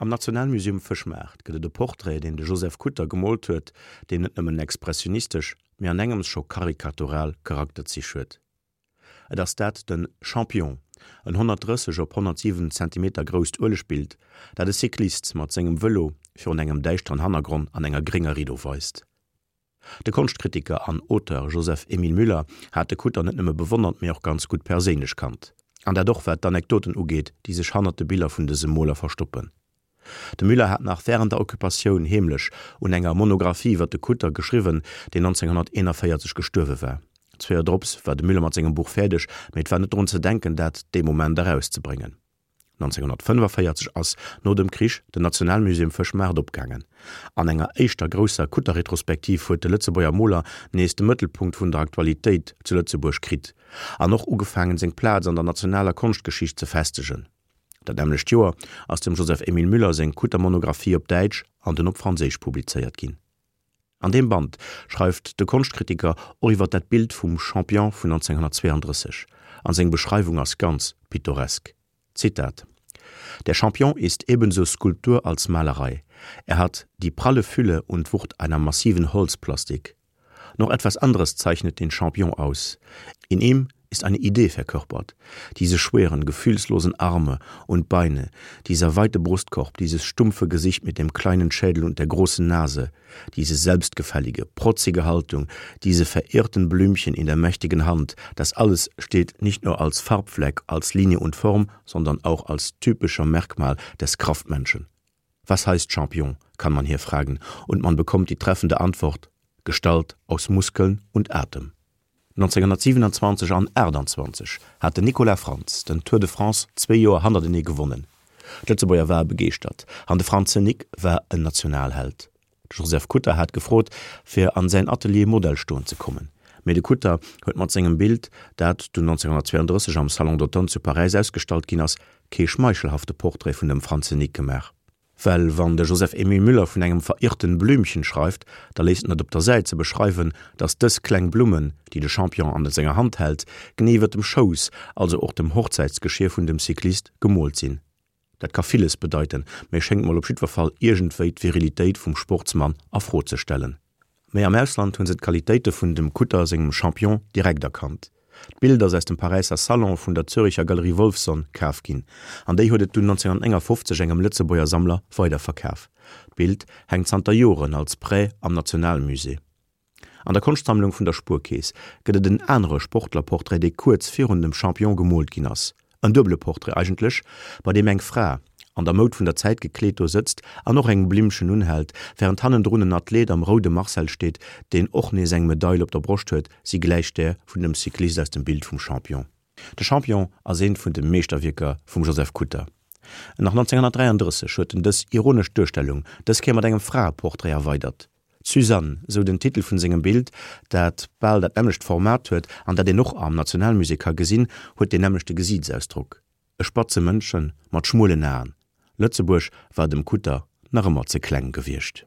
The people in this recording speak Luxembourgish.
Am Nationalmuseum Fëschmaart gëtt et e Portrait, deen de Joseph Kutter gemoolt huet, deen net nëmmen expressionistesch, mee an engems scho karikatural Charakterzich huet. Et ass dat de Champion, en 130 op 107 Zentimeter grousst Uelegbild, dat e Cyclist mat sengem Vëlo virun engem däischteren Hannergronn an enger grénger Riddo weist. De Konschtkritiker an Auteur Joseph Emile Müller hat de Kutter net nëmme bewonnert, mee och ganz gutt perséinlech kannt. An dat och wat d'Anekdoten ugeet, déi sech hannert de Biller vun dësem Moler verstoppen. De Müller hat nach wärend der Occupatioun heemlech un enger Monographie iwwer de Kutter geschriwwen, deen 1941 gestuerwe war. Zwee Joer drops war de Müller mat sengem Buch fäerdeg, mee et war net drun ze denken, dat dee Moment erauszebréngen. 1945 ass no dem Krich den Nationalmuseum Fëschmaart opgaangen. An enger éischter grousser Kutter-Retrospektiv huet de Lëtzebuerger Moler nees de Mëttelpunkt vun der Aktualitéit zu Lëtzebuerg kritt an och ugefaangen, seng Plaz an der nationaler Konschtgeschicht ze festegen. Dat nämmlecht Joer ass dem Joseph Emile Müller seng Kutter-Monographie op Däitsch an dunn op Franséisch publizéiert ginn. An deem Band schreift de Konschtkritiker och iwwer dat Bild vum Champion vun 1932, an seng Beschreiwung ass ganz pittoresk. Zitat, Der Champion ist ebenso Skulptur als Malerei. Er hat die pralle Fülle und Wucht einer massiven Holzplastik. Noch etwas anderes zeichnet den Champion aus. In ihm ist eine Idee verkörpert. Diese schweren, gefühlslosen Arme und Beine, dieser weite Brustkorb, dieses stumpfe Gesicht mit dem kleinen Schädel und der großen Nase, diese selbstgefällige, protzige Haltung, diese verirrten Blümchen in der mächtigen Hand, das alles steht nicht nur als Farbfleck, als Linie und Form, sondern auch als typischer Merkmal des Kraftmenschen. Was heißt Champion, kann man hier fragen, und man bekommt die treffende Antwort: Gestalt aus Muskeln und Atem. 1927 an 28 hat den Nicolas Frantz den Tour de France zwee Joer hannertenee gewonnen. D'Lëtzebuerger ware begeeschtert an de Franze Nic war en Nationalheld. De Joseph Kutter hat gefrot, fir an säin Atelier Modell stoen ze kommen. Mee de Kutter huet mat sengem Bild, dat dunn 1932 am Salon d'Automne zu Paräis ausgestallt ginn ass, kee schmeichelhafte Portrait vun dem Franze Nic gemaach. Well wann de Joseph Emile Müller vun engem verirrten Blümchen schreift, da léisst en et op der Säit ze beschreiwen, datt dës kleng Blummen, déi de Champion an senger Hand hält, genee iwwer dem Schouss, also och dem Hochzäitsgeschier vun dem Cyclist, gemoolt sinn. Dat ka villes bedeiten, mee schéngt mol op jiddwer Fall iergendwéi d'Virilitéit vum Sportsmann a Fro ze stellen. Mee am Ausland hunn se d'Qualitéite vun dem Kutter sengem Champion direkt erkannt. D'Bild ass aus dem Paräisser Salon vun der Züricher Galerie Wolfson kaf ginn, an déi huet et dunn 1959 engem Lëtzebuerger Sammler weiderverkaf. D'Bild hänkt zanter Joren als Prêt am Nationalmusée. An der Konschtsammlung vun der Spuerkeess gëtt et en anere Sportlerportrait, dee kuerz virun dem Champion gemoolt ginn ass. En duebele Portrait eigentlech, bei deem eng Fra, an der Moud vun der Zäit gekleet, do sëtzt an och eng Blimmchen unhält, wärend hannendrun en Athlet am roude Marcel steet, deen och nees eng Medail op der Broscht huet, si gläicht där vun dem Cyclist aus dem Bild vum Champion. De Champion ass eent vun de Meeschterwierker vum Joseph Kutter. Nach 1933 huet en dës ironesch Duerstellung, dës Kéier mat engem Fraeportrait erweidert. D'Suzanne, sou den Titel vun sengem Bild, dat bal dat nämmlecht Format huet an dat een och am Nationalmusée ka gesinn, huet deen nämmlechte Gesiitsausdrock, e spatze Mëndchen mat schmuelen Aen. Lëtzebuerg war dem Kutter nach ëmmer ze kleng gewiescht.